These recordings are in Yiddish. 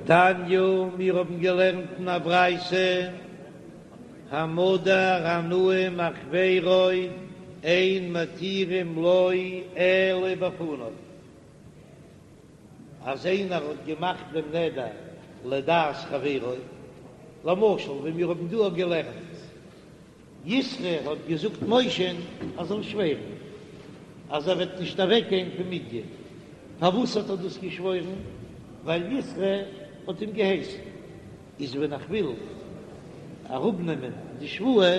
תניא, מיר האבן געלערנט אין א ברייתא, המודר הנאה מחבירו אין מתירים לו אלא בפניו, אז איינער האט געמאכט דעם נדר לדעת חברו, למשל ווי מיר האבן דא געלערנט, יתרו האט געזאגט משה'ן ער זאל שווערן אז ער וועט נישט אוועק גיין פון מדין, פארוואס האט ער דאס געשוואוירן? ווייל יתרו האט אים געהייסן. איז ווען איך וויל אראפנעמען די שבועה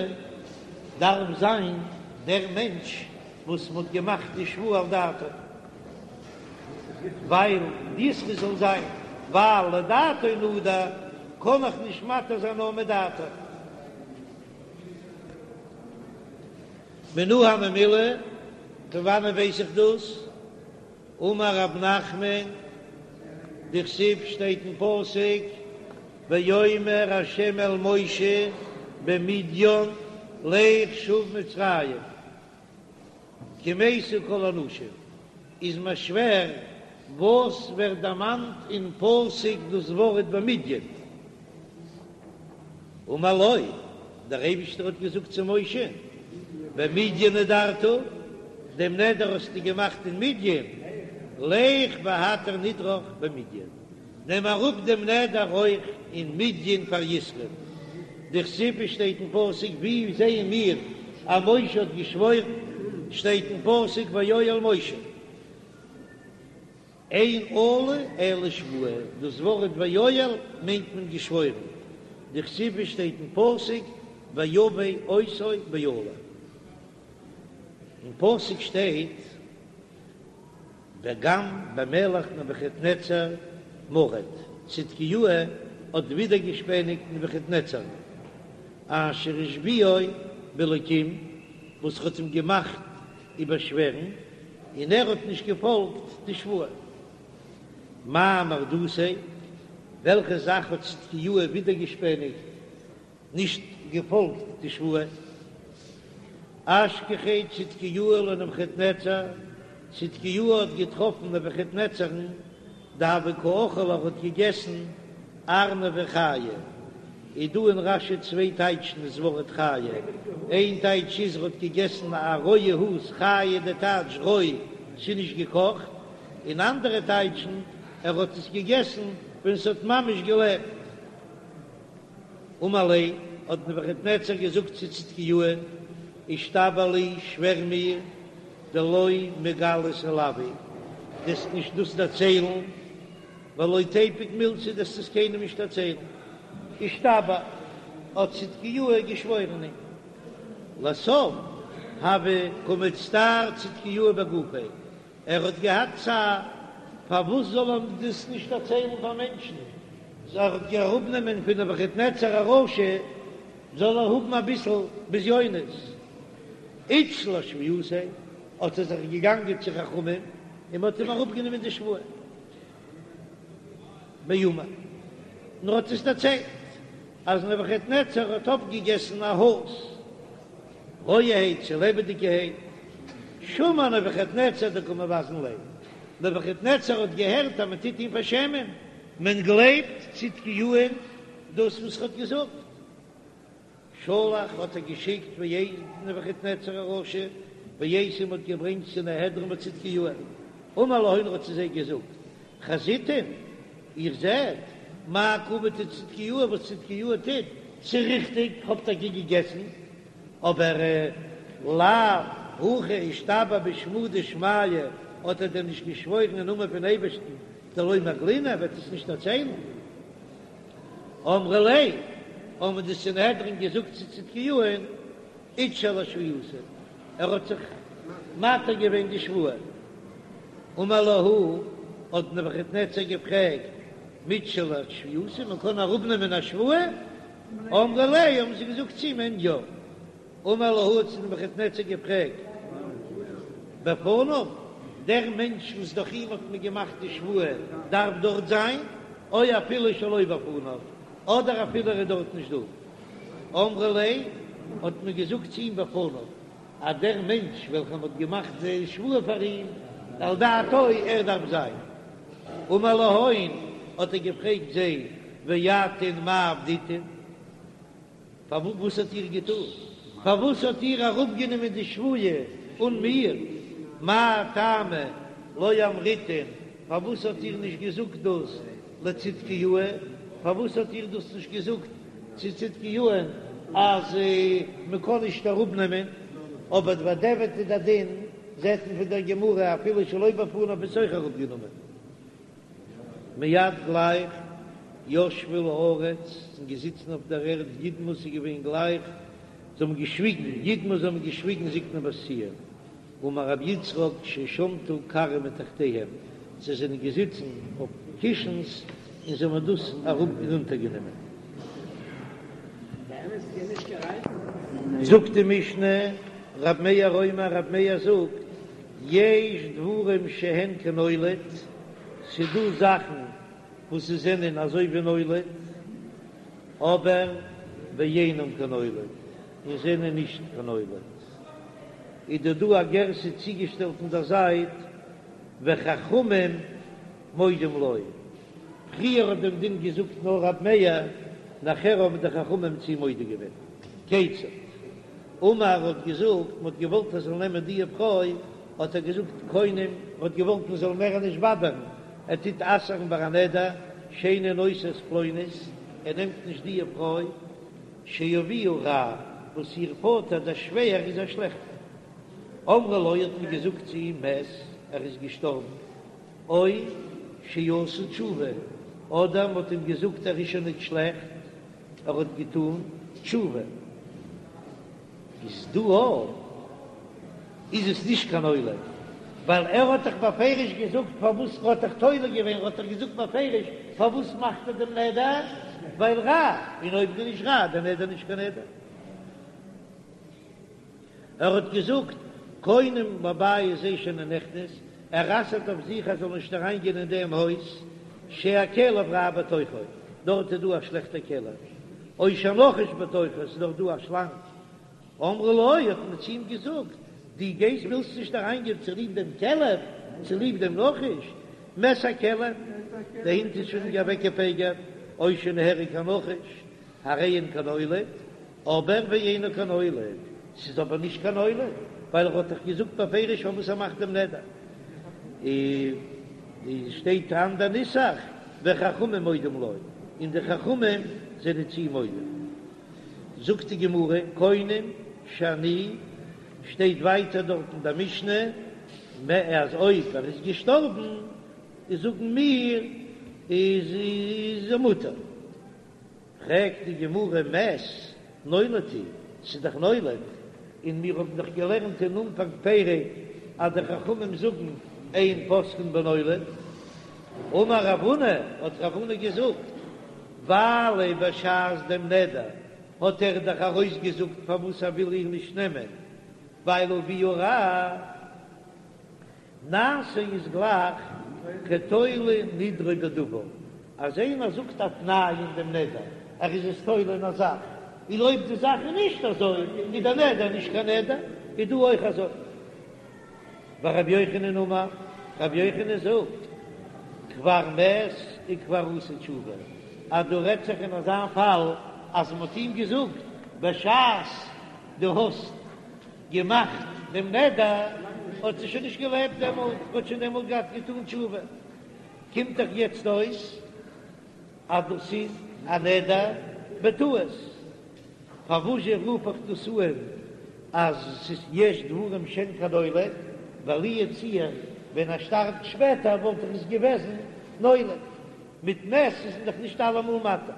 דארף זיין דער מענטש וואס מ'האט געמאכט די שבועה על דעתו, ווייל יתרו זאל זיין, ווייל לדעתו נדר קען איך נישט מתיר זיין נאר מדעתו. מנא הני מילי, פון וואנען ווייס איך דאס? אמר רב נחמן, דכתיב שטייט אין פסוק, ויאמר ה' אל משה במדין לך שוב מצרים, כי מתו כל האנשים, איז מיר שווער וואס ווערט דערמאנט אין פסוק דאס ווארט במדין? אמר לו, דער אייבישטער האט געזאגט צו משה, במדין נדרת, דעם נדר האסטו געמאכט אין מדין, לך והתר נדרך במדין, נעם אראפ דעם נדר אויך אין מדין פאר יתרו, דכתיב שטייט אין פסוק, ווי זעען מיר אז משה האט געשוואוירן, שטייט אין פסוק ויואל משה. אין אלה אלא שבועה, דאס ווארט ויואל מיינט מען געשוואוירן, דכתיב שטייט אין פסוק ויבא אותו באלה, אין פסוק שטייט וגם במלך נבוכדנצר מרד, צדקיהו האט ווידערגעשפעניגט נבוכדנצר אשר השביעו באלקים וואס האט אים געמאכט איבערשווערן, און ער האט נישט געפאלגט די שבועה. מאי מרדותיה, וועלכע זאך האט צדקיהו ווידערגעשפעניגט, נישט געפאלגט די שבועה? אשכחיה צדקיהו לנבוכדנצר, צדקיהו האט געטראפן נבוכדנצר'ן דהוה קא אכיל ער האט געגעסן ארנבא חיא, איז דא אין רש"י צוויי טייטשן דאס ווארט חיה, איין טייטש איז ער האט געגעסן א רויע האז' חיה די טייטש רוי ס'איז נישט געקאכט, און אנדערע טייטשן ער האט עס געגעסן ווען ס'האט ממש געלעבט. אמר ליה, האט נבוכדנצר געזאגט צו צדקיהו'ן, אישתבע לי, שווער מיר, דלא מגלית עילואי, דו'סט נישט דאס דערציילן, ולא תיפוק מילתא, דו'סט עס קיינעם נישט דערציילן. אישתבע, האט צדקיהו געשוואוירן אים. לסוף, הוה קא מצטער צדקיהו בגופיה, ער האט געהאט צער, פארוואס זאל ער דאס נישט דערציילן פאר מענטשן? זאל ער אראפנעמען פון נבוכדנצר הרשע, זאל ער האבן אביסל בזיונות. אתשיל אשבועתיה, האט ער זיך געגאנגען צו חכמים און מען האט אים אראפגענומען די שבועה. ואמר, און ער האט עס דערציילט אז נבוכדנצר האט אויפגעגעסן א האז' רויערהייט צו לעבעדיגערהייט, שמע נבוכדנצר דקא מבזין ליה, נבוכדנצר האט געהערט אז מען טוט אים פארשעמען, מען גלייבט צדקיהו'ן דאס וואס ער האט געזאגט. שלח האט ער געשיקט ואייתי נבוכדנצר הרשע ואייתי מ'האט געברענגט סנהדרין בצדקיהו'ן, אמר להון האט צו זיי געזאגט, חזיתון, איר זעט, מאי קא עביד צדקיהו וואס צדקיהו טוט, ס'איז ריכטיג, כ'האב טאקע געגעסן, אבער לאו הכי אישתבע בשמא דשמיא, האט ער דען נישט געשוואוירן אין נאמען פון אייבערשטן, דלא מגלינא, ער וועט עס נישט דערציילן. אמרו ליה, האבן די סנהדרין געזאגט צו צדקיהו'ן, אתשיל אשבועתיה, ער האט זיך מתיר געווען די שבועה. אמר להו, האט נבוכדנצר געפרעגט, מתשיל אשבועתיה, מען קען אראפנעמען א שבועה? אמרו ליה, האבן זיי געזאגט צו אים, יא. אמר להו האט נבוכדנצר געפרעגט בפניו, דער מענטש וואס דורך אים האט מען געמאכט די שבועה דארף דארט זיין, או אפילו שלא בפניו, אדער אפילו ער איז דארט נישט דא. אמרו ליה, האט מען געזאגט צו אים בפניו, אז דער מענטש וועלכער מען האט געמאכט די שבועה פאר אים, על דעתו, ער דארף זיין. אמר להון. האט ער געפרעגט זיי, ואתון מאי עבדיתון? פארוואס האט איר געטון? פארוואס האט איר אראפגענומען די שבועה אן מיר? מאי טעמא לא אמריתון, פארוואס האט איר נישט געזאגט דאס לצדקיהו? פארוואס האט איר דאס נישט געזאגט צו צדקיהו'ן אז מען קען נישט אראפנעמען? אבער בדיעבד איז דער דין, זעט מען פון דער גמרא אפילו שלא בפניו איז אויך אראפגענומען. מיד גלייך ישבו לארץ, זענען געזיצן אויף דער ערד ידמו ס'איז געווען גלייך, זיי האבן געשוויגן, ידמו זיי האבן געשוויגן זקני בת ציון, אמר רבי יצחק ששמטו כרים מתחתיהם, זיי זענען געזיצן אויף קישנס און זיי האבן דאס אראפ ארונטערגענומען. זאגט די משנה, רב מאיר אומר, רב מאיר זאגט, יש דברים שהן כנולד, ס'דא זאכן וואס ס'זענען אזוי ווי נולד, אבער ואינם כנולד, און זענען נישט כנולד. איז דא דא א גירסא צוגעשטעלט אין דער זייט, וחכמים מודים לו. פריער האט דעם דין געזאגט נאר רב מאיר, נאכער האבן די חכמים צו מודה געווען. כיצד? אמר האט געזאגט, מען האט געוואלט ער זאל נעמען די פרוי, האט ער געזאגט קונם, ער האט געוואלט מען זאל מער נישט באדערן, ער טוט אסר'ן ביי א נדר, שאינו נושא את פלונית, ער נעמט נישט די פרוי, שאביה רע, וואס איר פאטער דער שווער איז א שלעכטער. אמרו לו האט מען געזאגט צו אים מת, ער איז געשטארבן, או שעשה תשובה, אדער מען האט אים געזאגט ער איז שוין נישט שלעכט, ער האט געטון תשובה, איז דא א איז עס נישט קיין נולד, ווייל ער האט דאך בפירוש געזאגט פארוואס ער האט דאך תולה געווען, ער האט דאך געזאגט בפירוש פארוואס מאכט ער דעם נדר, ווייל רע, און אויב איז נישט רע, דער נדר נישט קיין נדר. ער האט געזאגט, קונם לבית זה שאיני נכנס, ער אסר'ט אויף זיך ער זאל נישט אריין גיין אין דעם הויז, שהכלב רע בתוכו, דארט איז דא א שלעכטע כלב, או שהנחש בתוכו, עס איז דארט דא א שלאנג. אמרו לו, האט מען צו אים געזאגט, דו גייסט ווילסט נישט אריין גיין צוליב דעם כלב, צוליב דעם נחש, מת הכלב, דער הונט איז שוין אוועקגעפגר'ט, או שנהרג הנחש, הרי הן כנולד, אבער ואינו כנולד, ס'איז אבער נישט קיין נולד, ווייל ער האט דאך געזאגט בפירוש פארוואס ער מאכט דעם נדר. און שטייט אן אנדער נוסח, וחכמים מודים לו, און די חכמים זענען צו אים מודה. זאגט די גמרא, קונם שאני, שטייט ווייטער דארט אין דער משנה, אז אויב ער איז געשטארבן, איז זאגן מיר איז ער מותר. פרעגט די גמרא מת נולד הוא, ס'איז דאך נולד, און מיר האבן דאך געלערנט אין אנפאנג פרק אז די חכמים זאגן אין פוסקין בנולד. אמר רב הונא, האט רב הונא געזאגט, ווייל בשעת דעם נדר האט ער דאך ארויסגעזאגט פארוואס ער וויל איר נישט נעמען, ווייל אביה רע. נעשה איז גלייך כתולה נדרו בדבר, אז איינער זאגט א תנאי אין דעם נדר, ער איז עס תולה אין א זאך, און אויב די זאך איז נישט אזוי, איז דער נדר נישט קיין נדר, איז דא אויך אזוי. ורבי יוחנן אמר, רבי יוחנן זאגט, כבר מת וכבר עשה תשובה, אז דא רעדט זיך אין אזא פאל אז מען האט אים געזאגט בשעת דו האסט געמאכט דעם נדר האט זי שוין נישט געלעבט דעמאלט, האט שוין דעמאלט געהאט געטאן תשובה, קומט דאך יעצט אויס אז דאס איז א נדר בטעות, פארוואזשע רוף איך דאס אן אז ס'איז יש דברים שהן כנולד, ווייל לו יצוייר ווען ער שטארבט שפעטער וואלט דאך עס געוועזן נולד, מיט מת איז מען דאך נישט אלעמאל מתיר.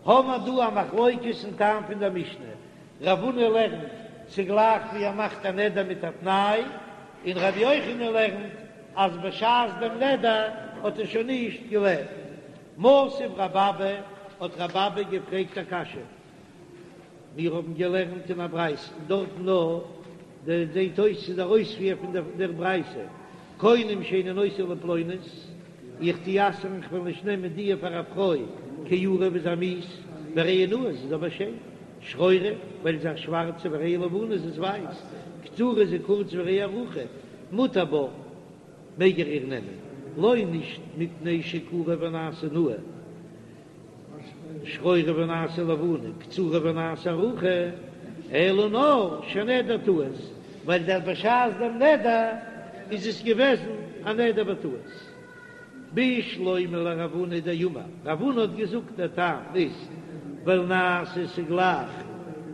האמער דא א מחלוקת אין טעם פון דער משנה, רב הונא לערנט ס'גלייך ווי ער מאכט א נדר מיט א תנאי, און רבי יוחנן לערנט אז בשעת דעם נדר האט ער שוין נישט געלעבט. מתיב רב אבא, האט רב אבא געפרעגט א קשיא, מיר האבן געלערנט אין א ברייתא און דארטן נאר דער זעט אויס ס'איז דער אויספיר פון דער ברייתא, קונם שאיני נושא לפלונית, איך טו אסר'ן כ'וועל נישט נעמען דיע פאר א פרוי, כעורה וואס איז מיאוס, והרי היא נאה זי איז אבער שיין, שחורה ווייל זי איז א שווארצע והרי היא לבנה זי איז ווייס, קצרה זי איז קורץ והרי היא ארוכה, מותר בה. מעג ער איר נעמען. לא נישט מפני שעקורה ונעשה נאה, שחורה ונעשה לבנה, קצרה ונעשה ארוכה, אלא נאר שנדר טעות, ווייל דער בשעת דעם נדר איז עס געוועזן א נדר בטעות. בשלמא לרב הונא דאמר, רב הונא האט געזאגט דער טעם איז ווייל נעשה ס'גלייך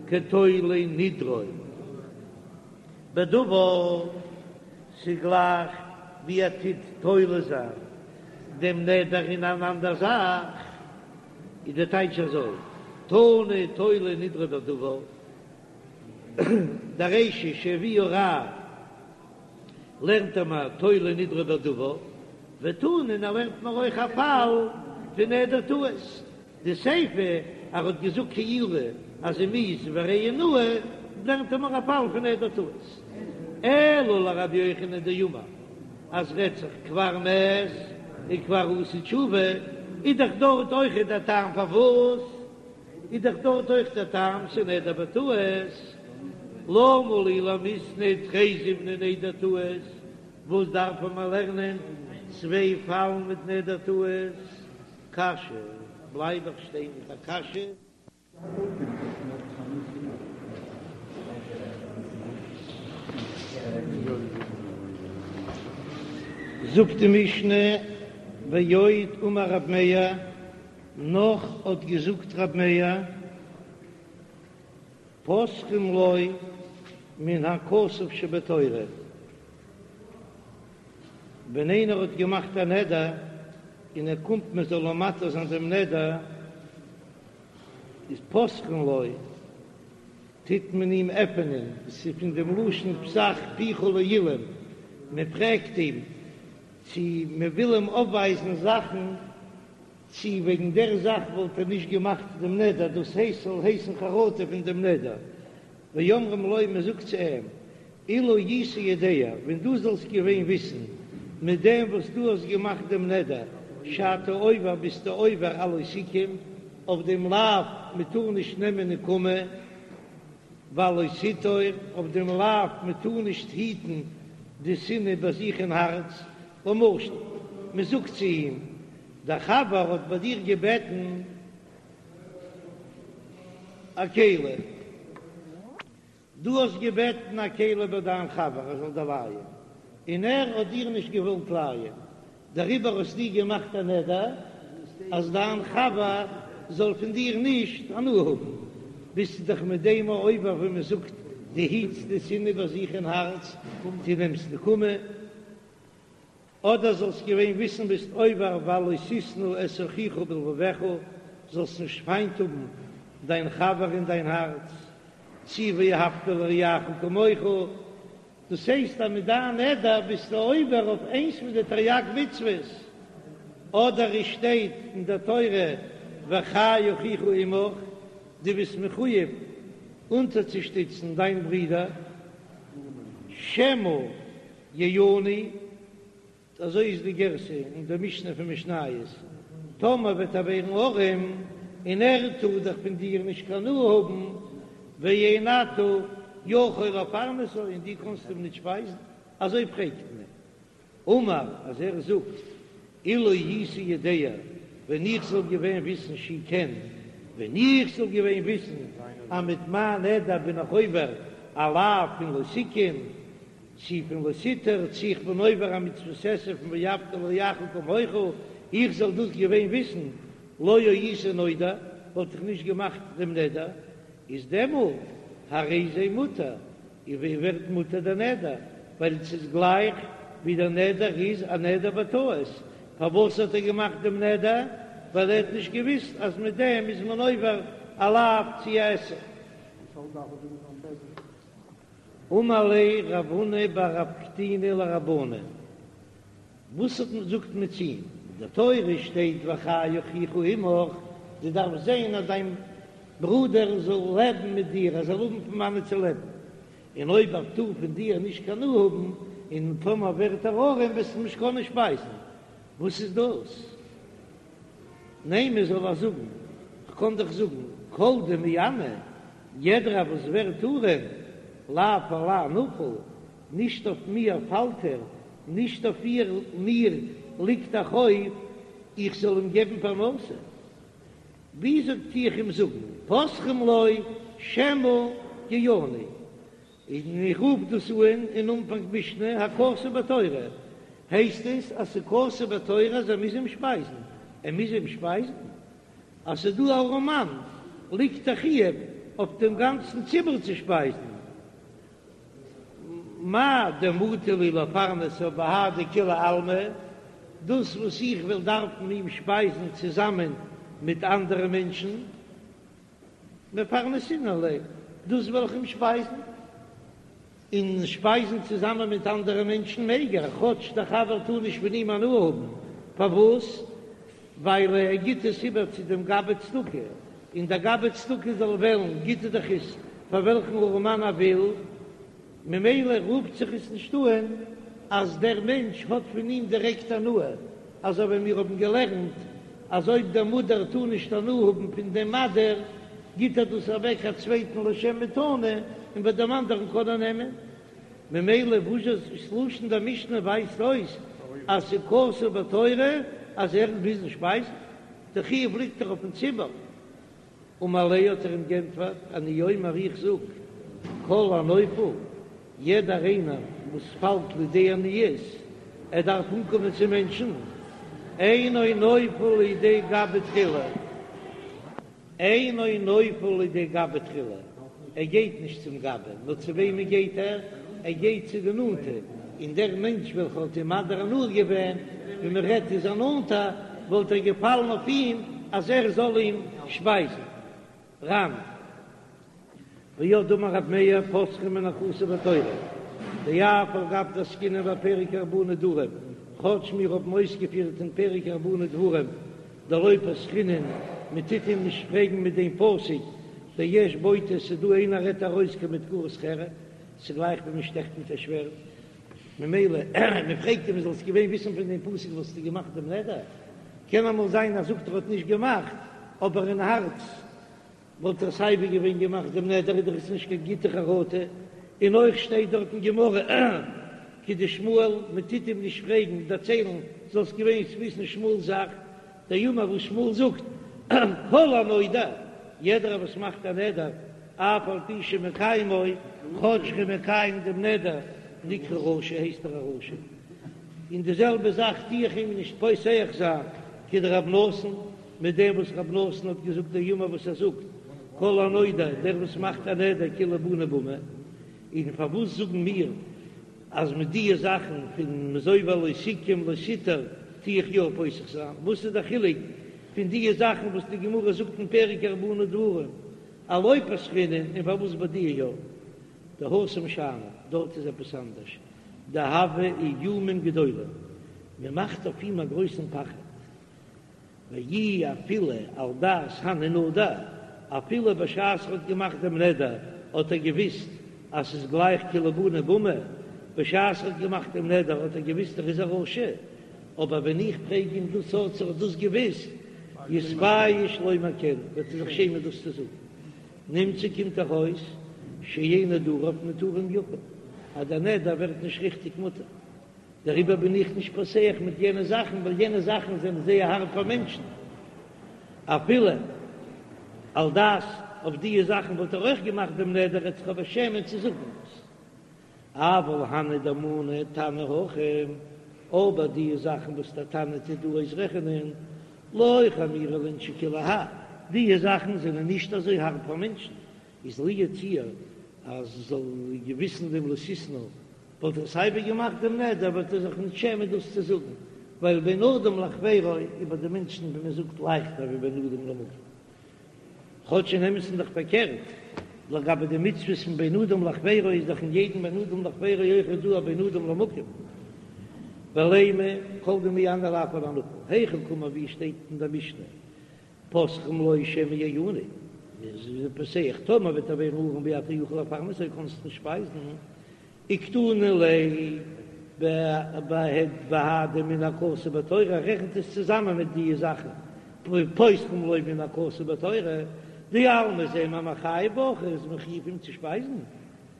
כתולה נדרו בדבר, ס'גלייך ווי ער טוט תולה זיין דעם נדר אין אן אנדער זאך, איז דער טייטש אזוי, תנא תולה נדרו בדבר, דער רישא שהביאה רעה לערנט ער מיר תולה נדרו בדבר, ותנא און ער לערנט מיר אויך א פאל פון נדר טעות, די סיפא ער האט געזאגט כעורה אז זי מיאוס והרי היא נאה, לערנט ער מיר א פאל פון נדר טעות. אלא לרבי יוחנן דאמר אז רעדט זיך כבר מת וכבר עשה תשובה, איז דאך דארט אויכעט דער טעם פארוואס איז דאך דארט אויך דער טעם ס'נדר בטעות, למה לי למיתני תרי זימני נדר טעות, וואס דארף מען לערנען צוויי פאלן מיט נדר טעות? קשיא, בלייב איך שטיין מיט א קשיא. זאגט די משנה, ועוד אמר רב מאיר, נאך האט געזאגט רב מאיר, פותחין לו מן הכתוב שבתורה, ווען איינער האט געמאכט א נדר און ער קומט מען זאל אים מתיר זיין דעם נדר, איז פותחין לו, טוט מען אים עפענען, עס איז פון דעם לשון פתח פיך לאילם, מען פרעגט אים צו מען וויל אים אויפווייזן זאכן, צו וועגן דער זאך וואלט ער נישט געמאכט דעם נדר, דאס הייסט ס'זאל הייסן חרטה פון דעם נדר, ואומרים לו, מען זאגט צו אים, אילו היית יודע, ווען דו זאלסט געווען וויסן, מיט דעם וואס דו האסט געמאכט דעם נדר, שאתה עובר ביסטו עובר על לא תקום, אויף דעם לאו מען טאר נישט נעמען נקמה, ועל לא תטור, אויף דעם לאו מען טאר נישט היטן די שנאה ביי זיך אין הארץ, למשל, מען זאגט צו אים, דער חבר האט ביי דיר געבעטן א כלי. דו האסט געבעטן א כלי ביי דיין חבר ער זאל דיר לייען, און ער האט דיר נישט געוואלט לייען, דעריבער האסטו געמאכט א נדר אז דיין חבר זאל פון דיר נישט הנאה האבן, ביסטו דאך מיט דעם עובר ווי מען זאגט, דו היטסט די שנאה ביי זיך אין הארץ, דו נעמסט נקמה. אדער זאלסט געווען וויסן ביסט עובר ועל לא תשנא את אחיך בלבבך, זאלסט נישט פיינט האבן דיין חבר אין דיין הארץ, צי ואהבת לרעך כמוך, דאס הייסט אז מיט דיין נדר ביסטו עובר אויף איינס פון די תרי"ג מצוות, אדער עס שטייט אין דער תורה וחי אחיך עמך, דו ביסט מחויב אונטערצושטיצן דיין ברודער, שמא יעני, אזוי איז די גירסא אין די משנה פון משניות, טאמער וועט ער ווערן ארעם און ער טאר דאך פון דיר נישט קיין הנאה האבן, ואין אתה יכול לפרנסו און דו קאנסט אים נישט שפייזן, אזוי פרעגט מען. אמר, אז ער זאגט, אילו הייתי יודע, ווען איך זאל געווען וויסן שהוא כן, ווען איך זאל געווען וויסן אז מיט מיין נדר בין איך עובר א לאו פון לא תקום, צי פון לא תטור, צי איך בין עובר א מצוות עשה פון ואהבת לרעך כמוך, איך זאל דאס געווען וויסן, לא הייתי נודר, וואלט איך נישט געמאכט דעם נדר, איז דעמאלט הרי זה מותר, און ווי ווערט מותר דער נדר, ווייל עס איז גלייך ווי דער נדר איז א נדר בטעות, פארוואס האט ער געמאכט דעם נדר? ווייל ער האט נישט געוויסט אז מיט דעם איז מען עובר א לאו צי א עשה. אמר ליה רב הונא בר רב קטינא לרבנן, וואס האט מען זאגט מען צו אים, אין דער תורה שטייט וחי אחיך עמך, דו דארפסט זען אז דיין ברודער זאל לעבן מיט דיר, ער זאל האבן פון וואנעט צו לעבן, און אויב ער טאר פון דיר נישט קיין הנאה האבן, און טאמער ווערט ער ארעם וועסטו אים נישט קענען שפייזן, וואס איז דאס? נימא זאל ער זאגן, כ'קען דאך זאגן, כל דמעני, יעדער וואס ווערט ארעם, לאו עלי נפיל, נישט אויף מיר פאלט ער, נישט אויף איר מיר. ליגט א חוב איך זאל אים געבן פרנסה, וויאזוי טו איך אים זאגן פותחין לו שמא יעני, און איך רוף דאס אן אין אנפאנג משנה הכתוב בתורה, הייסט עס אז ס'איז כתוב בתורה אז ער מוז אים שפייזן, ער מוז אים שפייזן? אז ס'איז דא א ארעמאן ליגט א חיוב אויף דעם גאנצן ציבור צו שפייזן, מאי דמטי לי לפרנסו בהדי כולי עלמא, דאס וואס איך וועל דארפן אים שפייזן צוזאמען מיט אנדערע מענטשן, מפרנסינן ליה, דאס וועל איך אים שפייזן, און שפייזן צוזאמען מיט אנדערע מענטשן מעג ער, כאטש דער חבר טאר נישט פון אים הנאה האבן, פארוואס? ווייל ער גיט עס איבער צו דעם גבאי צדקה, און דער גבאי צדקה זאל וועלן, גיט ער דאך עס פאר וועלכן ארעמאן ער וויל, ממילא רופט זיך עס נישט אן אז דער מענטש האט פון אים דירעקט הנאה, אזוי ווי מיר האבן געלערנט אז אויב דער מודר טאר נישט הנאה האבן פון דעם מדיר, גיט ער דאס אוועק א צווייטן לשם מתנה, און ביי דעם אנדערן קען ער נעמען. ממילא וואס איז לשון דער משנה ווייזט אויס אז ס'איז כתוב בתורה אז ער מוז אים שפייזן, די חיוב ליגט דאך אויפן ציבור. אמר ליה האט ער אים גענטפערט, אני אומר איך זאג, כל הנופל, יעדער איינער וואס פאלט לידי עניות, ער דארף אנקומען צו מענטשן, אינו נופל לידי גבאי תחילה, אינו נופל לידי גבאי תחילה, ער גייט נישט צום גבאי, נאר צו וועמען גייט ער? ער גייט צו די נאנטע, און דער מענטש וועלכער האט אים מדיר הנאה געווען, ווי מען רעדט איז א נאנטע, וואלט ער געפאלן אויף אים אז ער זאל אים שפייזן. ר"ן. ועוד דאמר רב מאיר פותחין מן הכתוב בתורה, דאף על גב דעסקינן בפרק ארבעה נדרים, כאטש מיר האבן אויסגעפירט אין פרק ארבעה נדרים דלא פתחינן, מען טוט אים נישט פרעגן מיט דעם פסוק דיש בוטה, ס'דא איינער רעדט ארויס כמדקרות חרב, ס'גלייך ווי מען שטעכט מיט א שווערד, ממילא מען פרעגט אים זאלסט געווען וויסן פון דעם פסוק וואלסטו געמאכט דעם נדר, קען אמאל זיין אז זאגט ער האט נישט געמאכט אבער אין הארץ וואלט ער סייווי געווען געמאכט דעם נדר איז דאך עס נישט קיין גוטע חרטה, און אויך שטייט דארט אין גמרא כדשמואל מען טוט אים נישט פרעגן דערציילן זאלסט געווען וויסן שמואל'ס זאך, דאמר וואס שמואל זאגט כל הנודר יעדער וואס מאכט א נדר אף על פי שמקיימו כאטש ער איז מקיים דעם נדר נקרא רשע הייסט ער א רשע, און די זעלבע זאך טו איך אים נישט פותח זיין כדרב נתן. מיט דעם וואס רב נתן האט געזאגט דאמר וואס ער זאגט כל הנודר דער וואס מאכט א נדר כאילו בנה במה, און פארוואס זאגן מיר אז מיט דיע זאכן פון מ'איז עובר לא תקום לא תטור טו איך יא פותח זיין, וואס איז דער חילוק פון דיע זאכן וואס די גמרא זאגט אין פרק ארבעה נדרים אז לא פתחינן און פארוואס ביי דיע יא? דהתם שאני, דארט איז עפעס אנדערש, דהוו איומים גדולים, מען מאכט אויף אים א גרויסן פחד. ואי אפילו על דעת הני נדר, אפילו בשעת ער האט געמאכט דעם נדר האט ער געוויסט אז ס'איז גלייך כאילו בנה במה, בשעת ער האט געמאכט דעם נדר האט ער געוויסט ער איז א רשע, אבער ווען איך פרעג אים דאס האט ער דאס געוויסט, יתבייש לומר כן, וועט ער זיך שעמען דאס צו זאגן. נמצא קומט דאך אויס שאין נדריו מותרים יפה, אז דער נדר ווערט נישט ריכטיג מותר. דעריבער בין איך נישט פותח מיט יענע זאכן, ווייל יענע זאכן זענען זייער הארב פאר מענטשן. אפילו על דעת אויף דיע זאכן וואלט ער אויך געמאכט דעם נדר, ער וועט זיך אבער שעמען צו זאגן דאס. אבל הני דמני תנא הכא, אבער דיע זאכן וואס דער תנא טוט דא אויסרעכענען, לא חמירא לאינשי כולי האי, דיע זאכן זענען נישט אזוי הארב פאר מענטשן, איז לו יצויר אז זאל געוויסן דעם לא תשנא וואלט ער סייווי געמאכט דעם נדר וועט ער זיך נישט שעמען דאס צו זאגן, ווייל בין אדם לחבירו איז ביי די מענטשן ווי מען זאגט לייכטער ווי בין אדם למקום. כאטש אין אמת'ן איז דאך פארקערט, לגבי די מצוות פון בין אדם לחבירו איז דאך אין יעדן בין אדם לחבירו אויך דא א בין אדם למקום. ולימא כל דמעני לאו על הנפול, היכי קאמר ווי שטייט אין דער משנה פותחין לו שמא יעני, איז פותח, טאמער וועט ער ווערן ארעם ואתה יכול לפרנסו קענסט נישט שפייזן, וקתני ליה בהדי מן הכתוב בתורה, רעכנט עס צוזאמען מיט די זאכן, פותחין לו מן הכתוב בתורה, דאלמא זעען מיר מחייב בהכי איז מחויב אים צו שפייזן,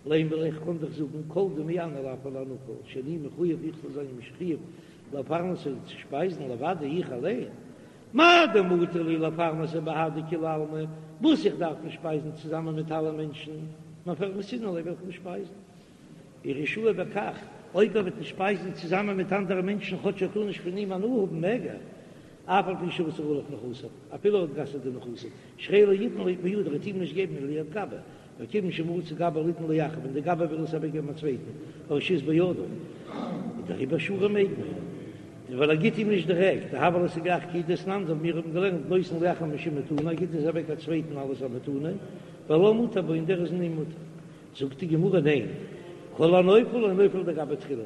לימא ליה איך קען דאך זאגן כל דמעני לאו על הנפול, שאני מחויב איך זאל זיין מחויב. לפרנסו צו שפייזן לבדי איך אליין, מאי דמטי לי לפרנסו בהדי כולי עלמא, וואס איך דארף אים שפייזן צוזאמען מיט אלע מענטשן, מפרנסינן ליה וועל איך אים שפייזן. ורשאי בכך, אויב ער וועט אים שפייזן צוזאמען מיט אנדערע מענטשן כאטש ער טאר נישט פון אים הנאה האבן מעג ער, אף על פי שאסר עליו נכסיו, אפילו ער האט גע'אסר'ט די נכסים, שהרי לא יתן בידו, ער וועט אים נישט געבן ליד גבאי, וכיוון שמצא גבאי ליתן לאחר, ווען די גבאי וויל עס אוועקגעבן א צווייטן, הרשות בידו, איז דעריבער שרי מעג מען, ווייל ער גיט אים נישט דירעקט, דהוה ליה סגי כי דתנן, אזוי ווי מיר האבן געלערנט נותן לאחר משום מתנה, ער גיט עס אוועק א צווייטן אלס א מתנה, והלה מותר בו און דער איז אין אים מותר. זאגט די גמרא ניין, כל הנופל לא נופל לידי גבאי תחילה,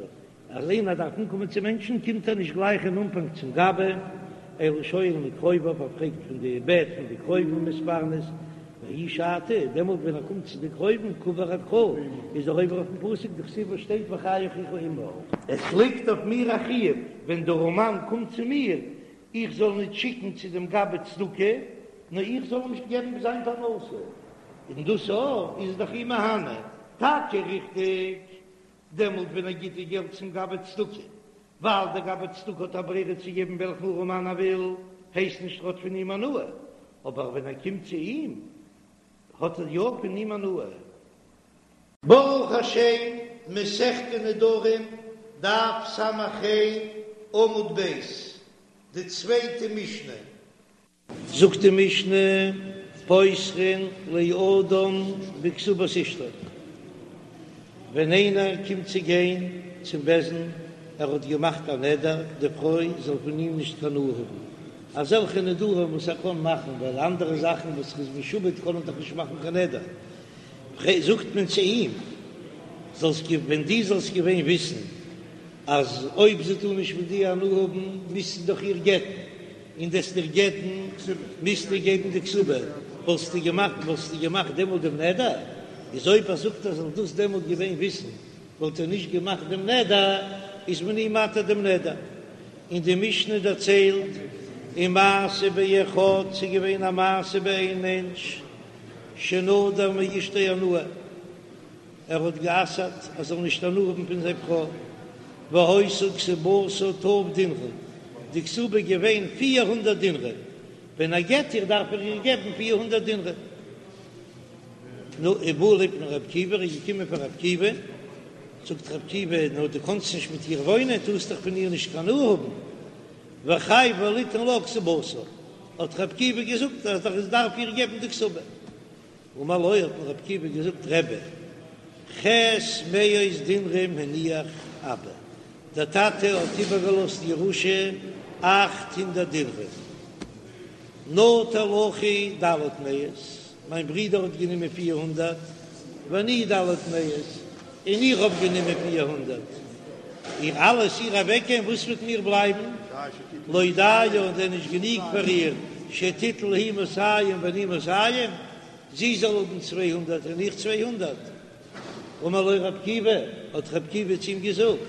אז איינער דארף אנקומען צו מענטשן קומט ער נישט גלייך אין אנפאנג צום גבאי, אלא שואל מקרוביו, ער פרעגט פון די בעט פון די קרובים ומתפרנס, וההיא שעתא, דעמאלט ווען ער קומט צו די קרובים קא עבר אקרא, איז ער עובר אויפן פסוק דכתיב וואס שטייט וחי אחיך עמך. עס ליגט אויף מיר א חיוב ווען דער ארעמאן קומט צו מיר, איך זאל ניט שיקן צו דעם גבאי צדקה, נאר איך זאל אים געבן זיין פרנסה, און דאס אויך איז דאך אים מהנה, טאקע ריכטיג, דעמאלט ווען ער גיט די געלט צום גבאי צדקה, ווייל דער גבאי צדקה האט א ברירה צו געבן וועלכן ארעמאן ער וויל, הייסט נישט ער האט פון אים הנאה, אבער ווען ער קומט צו אים, האט ער יא פון אים הנאה. ברוך השם, מסכת נדרים, דף ס"ה, עמוד ב', די צווייטע משנה. זאגט די משנה, פותחין לאדם בכתובת אשתו, ווען איינער קומט צו גיין צום בית דין, ער האט געמאכט א נדר די פרוי זאל פון אים נישט קיין הנאה האבן, אזעלכע נדרים וואס ער קען מאכן, ווייל אנדערע זאכן וואס ער איז משועבד קען ער דאך נישט מאכן קיין נדר, זאגט מען צו אים, זאלסט ווען דו זאלסט געווען וויסן אז אויב זי טאר נישט פון דיר הנאה האבן, מוזטו דאך איר גט'ן, און דו'סט איר גט'ן, מוזטו געבן די כתובה, וואלסטו געמאכט, וואלסטו געמאכט דעמאלט דעם נדר? איז אויב ער זאגט ער זאל דאס דעמאלט געווען וויסן, וואלט ער נישט געמאכט דעם נדר, איז מען אים מתיר דעם נדר. און די משנה דערציילט, ומעשה באחד, ס'איז געווען א מעשה ביי איין מענטש, שנדר מאשתו הנאה, ער האט גע'אסר'ט ער זאל נישט הנאה האבן פון זיין פרוי, והיתה כתובתה ת' דינרי, די כתובה איז געווען 400 דינרי, ווען ער גט איר דארף ער איר געבן 400 דינרי. נו, ובא לפני ר' עקיבא, ער איז געקומען פאר ר' עקיבא, זאגט ר' עקיבא, נו דו קאנסט נישט מיט איר וואוינען, טארסט דאך פון איר נישט קיין הנאה האבן, וחייבו ליתן לה כתובתה, האט ר' עקיבא געזאגט אז ער דארף איר געבן די כתובה. אמר לו, האט אים ר' עקיבא געזאגט, רבי, ח' מאות דינרים הניח אבא, דער טאטע האט איבערגעלאזט ירושה 800 דינרים, נטל אחי ד' מאות, מיין ברודער האט גענומען 400, ואני ד' מאות, און איך האב גענומען 400, איר אלעס איר אוועקגעבן, וואס וועט מיר בלייבן? לא דיה, איז דען נישט גענוג פאר איר שתיטול היא מאתים ואני מאתים, זי זאל האבן 200 און איך 200? אמר לו ר' עקיבא, האט ר' עקיבא צו אים געזאגט,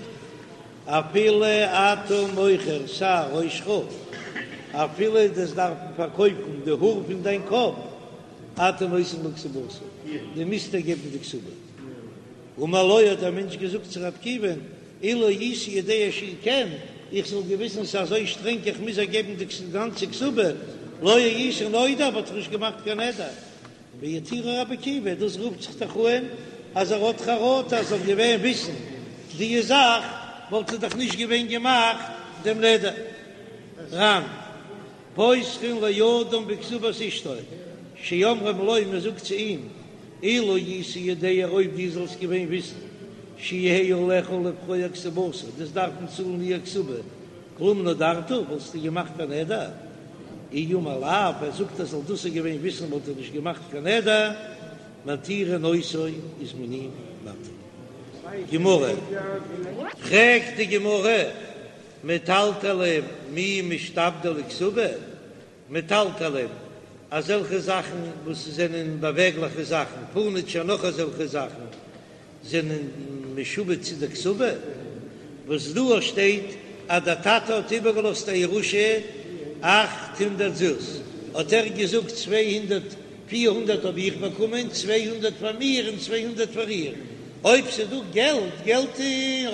אפילו אתה מוכר שער ראשך, אפילו דו'סט דארפן פארקויפן די האר פון דיין קאפ, אתה נותן לה כתובתה, דו מוזט איר געבן די כתובה. אמר לו האט דער מענטש געזאגט צו ר' עקיבא'ן, אילו הייתי יודע שהוא כן, איך זאל געוויסן ס'איז אזוי שטרענג איך מוז איר געבן די גאנצע כתובה, לא הייתי נודר וואלט איך נישט געמאכט קיין נדר. והתירו רבי עקיבא, דאס רופט זיך דאך אן אז ער האט חרטה אז ער זאל געווען וויסן די זאך וואלט ער דאך נישט געווען געמאכט דעם נדר. ר"ן. פותחין לאדם בכתובת אשתו, שאומרים לו, מען זאגט צו אים, אילו היית יודע אויב דו זאלסט געווען וויסן, שיהא עליך לפרוע כתובתה, דו'סט דארפן צאלן איר כתובה, כלום נדרת, וואלסטו געמאכט א נדר? אי אמר לאו, ער זאגט ער זאל דאס געווען וויסן וואלט ער נישט געמאכט קיין נדר, מתירין אותו איז מען אים מתיר. גמרא. פרעגט די גמרא, מטלטלין מי משתעבדי לכתובה, מטלטלין, אזעלכע זאכן וואס זענען באוועגליכע זאכן, פורניטשער נאך אזעלכע זאכן, זענען משועבד צו די כתובה, וואס דא שטייט אז דער טאטע האט איבערגעלאזט א ירושה 800 זוז, האט ער געזאגט 200, 400 האב איך באקומען, 200 פאר מיר און 200 פאר איר, אויב ס'איז דא געלט, געלט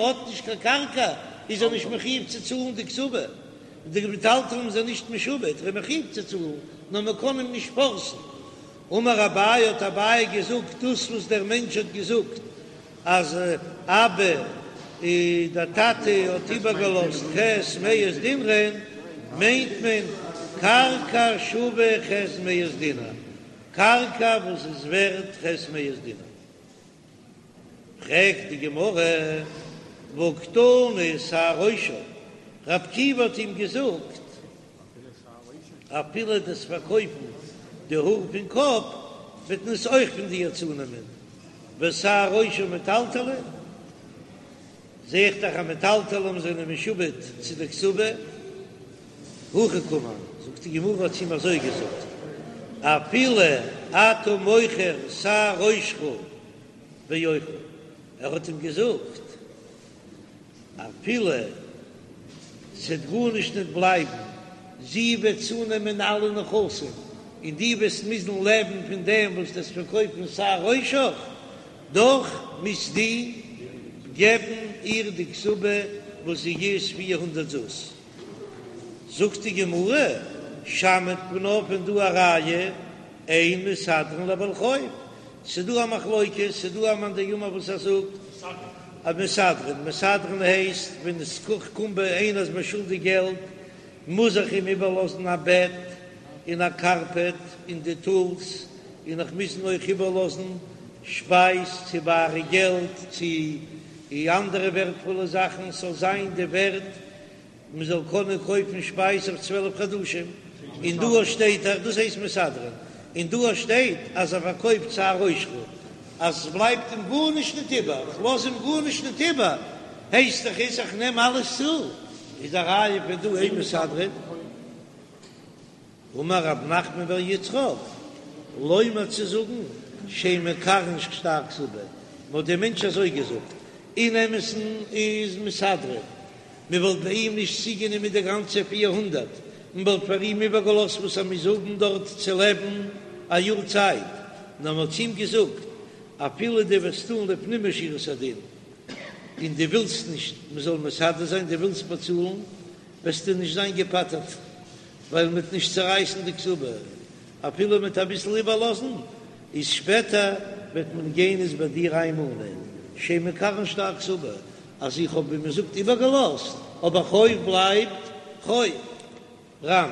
האט נישט קיין קרקע. איז ער נישט מחויב צו צאלן די כתובה, די מטלטלין זענען נישט משועבד, ער איז מחויב צו צאלן, נאר מען קען אים נישט פארסן. אמר אביי האט אביי געזאגט דאס וואס דער מענטש האט געזאגט אז אבא דער טאטע האט איבערגעלאזט ח' מאות דינרין, מיינט מען קרקע שווה ח' מאות דינר, קרקע וואס איז ווערט ח' מאות דינר. פרעגט די גמרא, והא קתני שער ראשו, רבי עקיבא האט אים געזאגט אפילו דו'סט פארקויפן די האר פון קאפ וועט מען עס אויך פון דיר צונעמען, ושער ראשו מטלטלי, זע איך דאך אז מטלטלים זענען משועבד צו די כתובה, הכי קאמר, זאגט די גמרא האט צו אים אזוי געזאגט, אפילו אתה מוכר שער ראשך ואוכל, ער האט אים געזאגט אפילו ס'וועט גארנישט ניט בלייבן, זי וועט צונעמען אלע נכסים, און דו וועסט מוזן לעבן פון דעם וואס דו'סט פארקויפן שער ראשך, דאך מוזט דו געבן איר די כתובה וואס זי איז 400 זוז. זאגט די גמרא, שמעת מינה פון דא א ראיה, אין מסדרין לבעל חוב, ס'דא א מחלוקת, ס'דא א מאן דאמר וואס ער זאגט אז מסדרין, מסדרין הייסט ווען עס קומט ביי איינער איז מיר שולדיג געלט, מוז איך אים איבערלאזן א בעט און א קארפעט און די טולס, און איך מוז אים אויך איבערלאזן שפייז צו בארע געלט צו אנדערע ווערטפולע זאכן, ס'זאל זיין די ווערט מען זאל קענען קויפן שפייז אויף 12 חדשים, און דא שטייט דאך דאס הייסט מסדרין, און דא שטייט אז ער פארקויפט שער ראשך אז עס בלייבט אים גארנישט ניט איבער, איך לאז אים גארנישט ניט איבער, הייסט דאך איז איך נעם אלעס צו, איז א ראיה פון דא אין מסדרין. אמר רב נחמן בר יצחק, לומר צו זאגן שאין מקרעין שטר כתובה, מען האט דעם מענטש אזוי געזאגט, אין אמת'ן איז מסדרין, מען וואלט ביי אים נישט צוגענומען די גאנצע 400, מען וואלט פאר אים איבערגעלאזט וואס ער מוז האבן דארט צו לעבן א יאר צייט, נאר מען האט צו אים געזאגט, אפילו דו וועסט טון לפנים משורת הדין, און דו ווילסט נישט מען זאל מסדר זיין, דו ווילסט באצאלן, וועסטו נישט זיין געפטר'ט. ווייל מ'וועט נישט צערייסן די כתובה אפילו מ'וועט אביסל איבערלאזן, איז שפעטער וועט מען גיין עס ביי דיר איינמאנען, שאין מקרעין שטר כתובה, אז איך האב ווי מ'זאגט איבערגעלאזט, אבער חוב בלייבט חוב. ר"ן.